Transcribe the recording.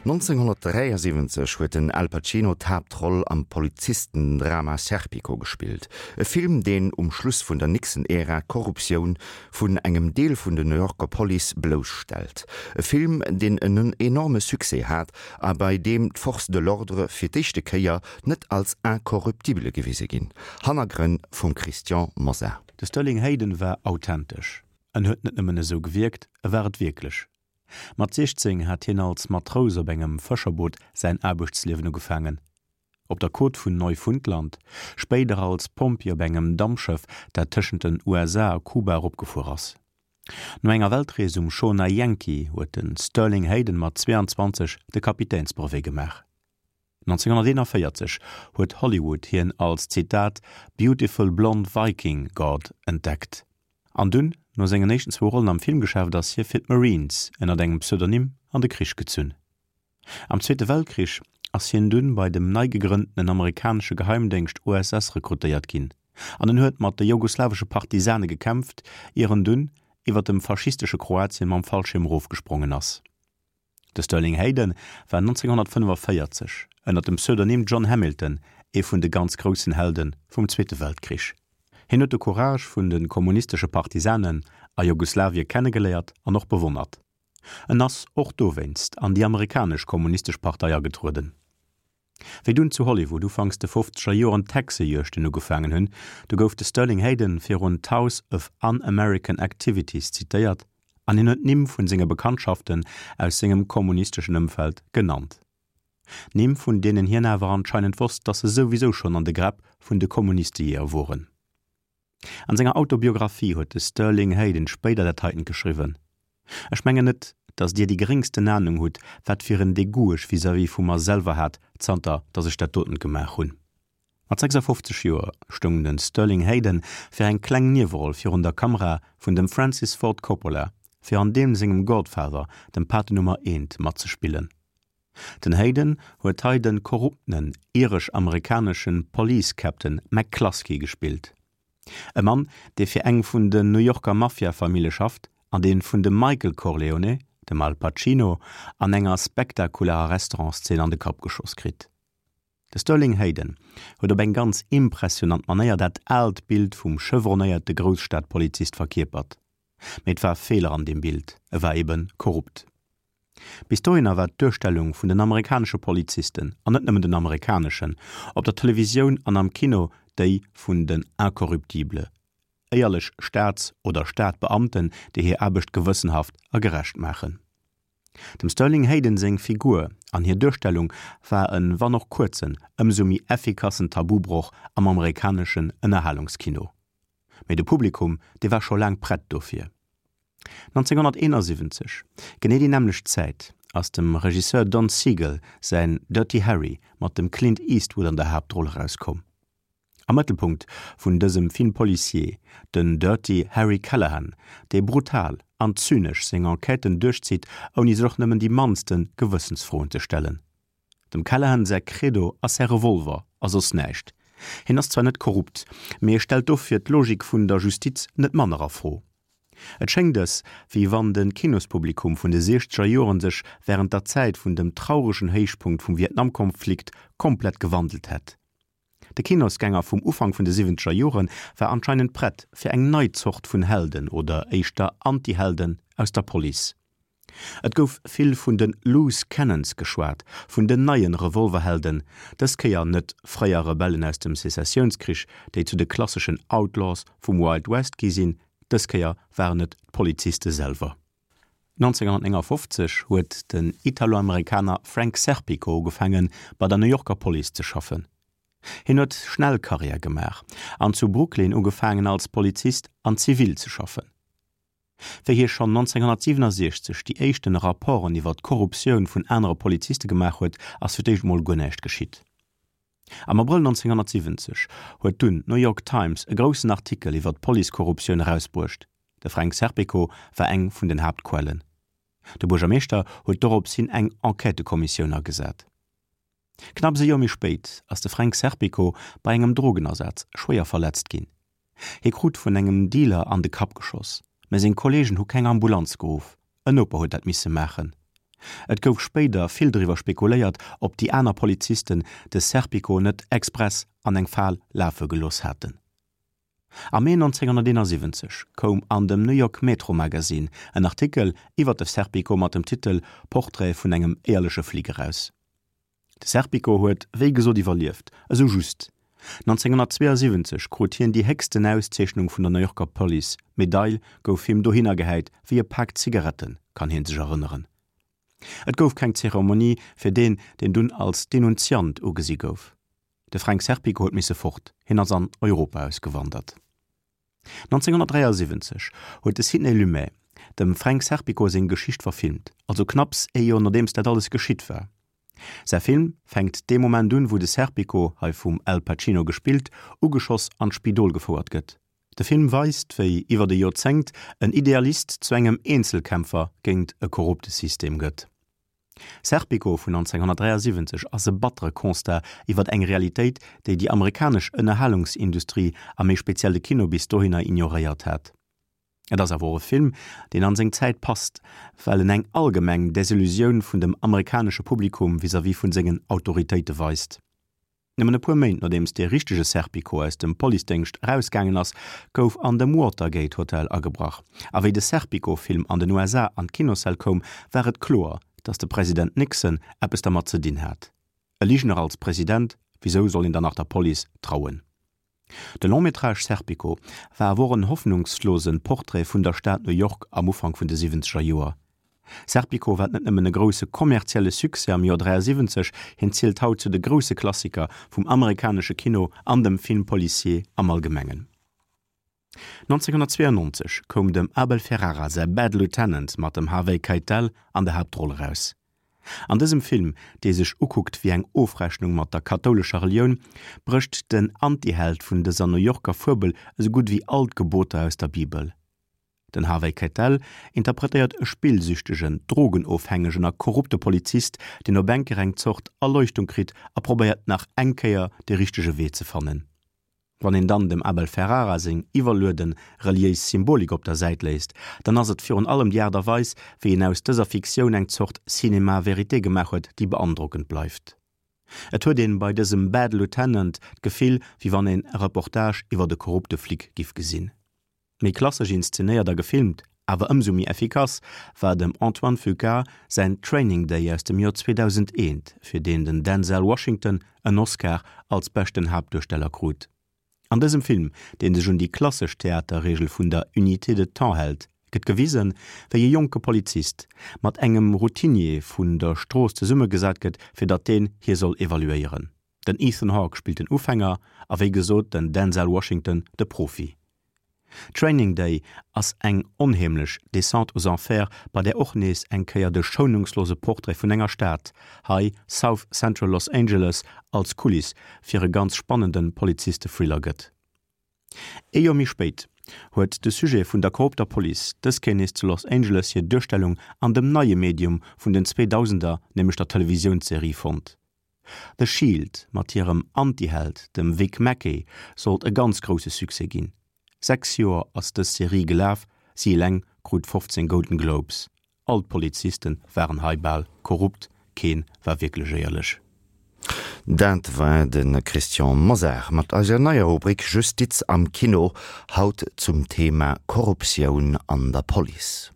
1973 huet den Al Pacino d'Haaptroll am Polizistendrama Serpico gespillt, e Film, deen um Schluss vun der Nixon-Ära d'Korruptioun vun engem Deel vun der New Yorker Police blousstellt. E Film, deen en enorme Succès hat a bei deem d'Forces de l'ordre fir d'éischte Kéier net als incorruptible gewise ginn. Hannergrënn vum Christian Mosar. De Sterling Hayden war authentesch. En huet net nëmmen esou gewierkt, e war et wierklech. Mat 16 hat hien als Matrous op engem Fëscherboot säin Aarbechtsliewen ugefaangen. Op der Côte vun Neufundland, spéider als Pompjee op engem Dampschëff, dat tëschent den USA a Kuba eropgefuer ass. No enger Weltrees um Schoner Yankee huet de Sterling Hayden mat 22 de Kapitänsbrevet gemaach. 1941 huet Hollywood hien als, Zitat, beautiful blonde Viking God entdeckt. An dunn, no sengen éischten zwou Rollen am Filmgeschäft, ass hie fir d'Marines ënnert engem Pseudonym an de Krich gezunn. Am Zweete Weltkrich ass hien dunn bei dem nei gegrënntenen amerikanesche Geheimdéngscht OSS rekrutéiert ginn an en huet mat de jugoslawesche Partisane gekämpft, ier en dunn iwwer dem faschistesche Kroatien mam Fallschierm erofgesprongen ass. De Sterling Hayden war 1945 ënner dem Pseudonym John Hamilton ee vun de ganz groussen Helde vum Zweete Weltkrich. Hien huet de Courage vun de kommunistesche Partisanen a Jugoslawie kennegeléiert an och bewonnert. En ass och dowéinst an déi amerikanesch Kommunistesch Partei agetrueden. Wéi dunn zu Hollywood ufanks de fofzeger Joren d'Hexejuegten ugefaangen hunn, du gouf de Sterling Hayden virun d'House of Un-American Activities zitéiert an hien huet d'Nimm vun senge Bekanntschaften aus sengem kommunisteschen Ëmfeld genannt. Nimm vun deenen hien awer anscheinend wosst, dass se souwisou schonn an de Gräpp vun de Kommunistejeeër woren. An senger Autobiographie huet de Sterling Hayden spéider dat heitent geschriwwen, Ech mengen net, datt Dir déi geréngsten Anung hutt, wat fir en Degoût ech vis-à-vis vu mer selwer hat, zanter datt ech dat dotent gemaach hunn. Mat 56 Joer stoung de Sterling Hayden fir eng kleng Nieweroll virun der Kamera vun dem Francis Ford Coppola, fir an deem sengem Godfather, dem Pate Nummer eent, matzespillen. Den Hayden huet hei de korruptenen iresch-amerikanesche Police Captain McCluskey gespillt. E Mann, dee fir eng vun den New Yorker Mafia-Famille schafft an dee vun dem Michael Corleone, dem Al Pacino, an enger spektakularer Restaurantszeen an de Kapp geschoss kritt. De Sterling Hayden huet op eng ganz impressionant Manéier dat aalt Bild vum chevronnéierte Grousstadpolizist verkierpert. Mee et war Feeler an deem Bild, e war ebe korrupt. Bis dohinner war d'Duerstellung vun den amerikanesche Polizisten, an net nëmmen den amerikaneschen, op der Televisioun an am Kino déi vun den Incorruptibles, éierlech Staats oder Stadbeamten, déi hir Aarbecht gewëssenhaft a gerecht maachen. Dem Sterling Hayden seng Figur an hir Duerstellung war en, wann och kuerzen, ëmsou méi effikassen Tabubroch am amerikaneschen Ënnerhalungskino. Mee de Publikum, dee war scho laang prett dofir. 1971, genee déi nämmlecht Zäit, ass dem Regisseur Don Siegel säin Dirty Harry mat dem Clint Eastwood an der Haaptroll erauskomm. Am Mëttelpunkt vun dësem Film policier den Dirty Harry Callahan, dee brutal an zynesch seng Enquêten duerchzitt, ouni sech och nëmmen déi mannste Gewëssensfroen ze stellen. Dem Callahan säi Credo ass säi Revolver a soss näischt. Hien ass zwar net korrupt, mee e stellt dofir d'Logik vun der Justiz net manner a Fro. Et schéngt ës, wéi wann de Kinospublikum vun de siechzeger Joren sech wärend der Zäit vun dem trauregen Héichpunkt vum Vietnamkonflikt komplett gewandelt hätt. De Kinosgänger vum Ufank vun de siwwenzeger Jore war anscheinend prett fir eng nei Zort vun Helden oder éischter Antihelden aus der Police. Et gouf vill vun de Loose Cannons geschwat, vun den neie Revolverhelden, dës Kéier net fréier Rebellen aus dem Sezessiounskrich, déi zu de klasseschen Outlaws vum Wild West gi sinn, dës Kéier waren et d'Poliziste selwer. 1959 huet den Italo-Amerikaner Frank Serpico ugefaange bei der New Yorker Police ze schaffen. Hien huet schnell Karriär gemaach an zu Brooklyn ugefaangen als Polizist an Zivil ze schaffen. Wéi hie schonn 1967 déi éischten Rapporten iwwer d'Korruptioun vun anere Poliziste gemaach huet, ass fir d'éischt mol guer näischt geschitt. Am Abrëll 1970 huet dunn d'New York Times e groussen Artikel iwwer d'Policekorruptioun erausbruecht. De Frank Serpico war eng vun den Haaptquellen. De Buergermeeschter huet dorops hin eng Enquêtëkommissioun agesat. Knapps e Joer méi spéit ass de Frank Serpico bei engem Drogenasaz schwéier verletzt ginn. Hie krut vun engem Dealer an de Kapp geschoss. Mä seng Kolleegen hu keng Ambulanz geruff, en Noper huet dat misse maachen. Et gouf spéider vill driwwer spekuléiert, ob déi aner Polizisten de Serpico net express an eng Fal lafe gelooss haten. Am Mee 1971 koum an dem New York Metro Magazine en Artikel iwwer de Serpico mat dem Titel Portrait vun engem éierleche Flic eraus. De Serpico huet wéi gesot iwwerlieft, esou just. 1972 krut hien déi héchsten Auszeechnung vun der New Yorker Police, d'Medail gouf him dohinner gehäit wéi e Pak Zigaretten, kann hie sech erënneren. Et gouf keng Zeremonie fir deen, deen dunn als Denunziant ugesi gouf. De Fränk Serpico huet misse fort, hien ass an Europa ausgewandert. 1973 huet de Sidney Lumet dem Fränk Serpico seng Geschicht verfilmt, also knapps ee Joer nodeems dat alles geschitt war. Säi Film fänkt dee Moment un, wou de Serpico, hei vum Al Pacino gespillt, ugeschoss an d'Spidol gefouert gëtt. De Film weist, wéi iwwert e Joerzéngt en Idealist zu engem Eenzelkämpfer géint e korrupte System gëtt. Serpico vun 1973 ass e battere Constat iwwer eng Realitéit, déi déi amerikanesch Ënnerhalungsindustrie a méi speziell de Kino bis dohinner ignoréiert hat. Et ass awer och e Film, deen an seng Zäit passt, well en eng allgemeng Desillusioun vun dem amerikanesche Publikum vis-à-vis vun sengen Autoritéite weist. Nëmmen e puer Méint nodeems dee richtege Serpico aus dem Policedéngscht erausgaangen ass, gouf an dem Watergate Hotel agebrach. A wéi de Serpico-Film an den USA an d'Kinossäll koum, war et kloer, datt de President Nixon eppes dermat ze dinn hat. E Ligener als President, wisou soll een dann nach der Police trauen? De Long-métrage Serpico war awer och en hoffnungslose Portrait vun der Stad New York am Ufank vun de siwwenzeger Joer. Serpico war net nëmmen e grousse kommerzielle Succès am Joer 73, hien zielt haut zu de grousse Klassiker vum amerikanesche Kino an dem Film policier am Allgemengen. 1992 koum dem Abel Ferrara säi Bad Lieutenant mat dem Harvey Keitel an der Haaptroll eraus. An dësem Film, dee sech ukuckt wéi eng Ofrechnung mat der kathoulescher Relioun, brécht den Antiheld vun dëser New Yorker Fuebel esou gutt ewéi all d'Geboter aus der Bibel. Den Harvey Keitel interpretéiert e spillsüchtegen, drogenofhängegen a korrupte Polizist, deen op eng Kéier eng Zort Erleuchtung kritt a probéiert nach eng Kéier de richtege Wee ze fannen. Wann een dann dem Abel Ferrara seng iwwerlueden reliéis Symbolik op der Säit léisst, dann ass et virun allem déi Aart a Weis, wéi en aus dëser Fiktioun eng Zort Cinéma vérité gemaach huet, déi beandrockend bleift. Et huet een bei dësem Bad Lieutenant d'Gefill, wéi wann een e Reportage iwwert e korrupte Flic giff gesinn. Méi klassesch inszenéiert a gefilmt, awer ëmsou méi effikass, war dem Antoine Fuqua säin Training Day aus dem Joer 2001, fir deen den Denzel Washington en Oscar als beschten Haaptduersteller krut. An dësem Film, dee sech un déi klassesch Theaterreegel vun der Unité de temps hält, gëtt gewisen, wéi e jonke Polizist mat engem Routinier vun der Strooss zesummegesat gëtt, fir datt deen hie soll evaluéieren. Den Ethan Hawke spillt den Ufänger a wéi gesot den Denzel Washington de Profi. Training Day ass eng onheemlech Descente aux enfers, bei där och nees eng Kéier de schounungslose Portrait vun enger Stad, hei South Central Los Angeles, als Kuliss fir e ganz spannende Poliziste-Thriller gëtt. Ee Joer méi spéit huet de Sujet vun der korrupter Police dës Kéier nees zu Los Angeles hir Duerstellung an dem neie Medium vun den Zweedausender, nämlech der Televisiounsserie fonnt. The Shield mat hirem Antiheld, dem Vic Mackey, sollt e ganz grousse Succès ginn. 6 Joer ass dës Serie gelaf, si eleng krut 15 Golden Globes. All d'Polizisten waren hei bal korrupt, keen war wierklech éierlech. Dat war de Christian Mosar mat eiser neier Rubrik Justiz am Kino, haut zum Thema Korruptioun an der Police.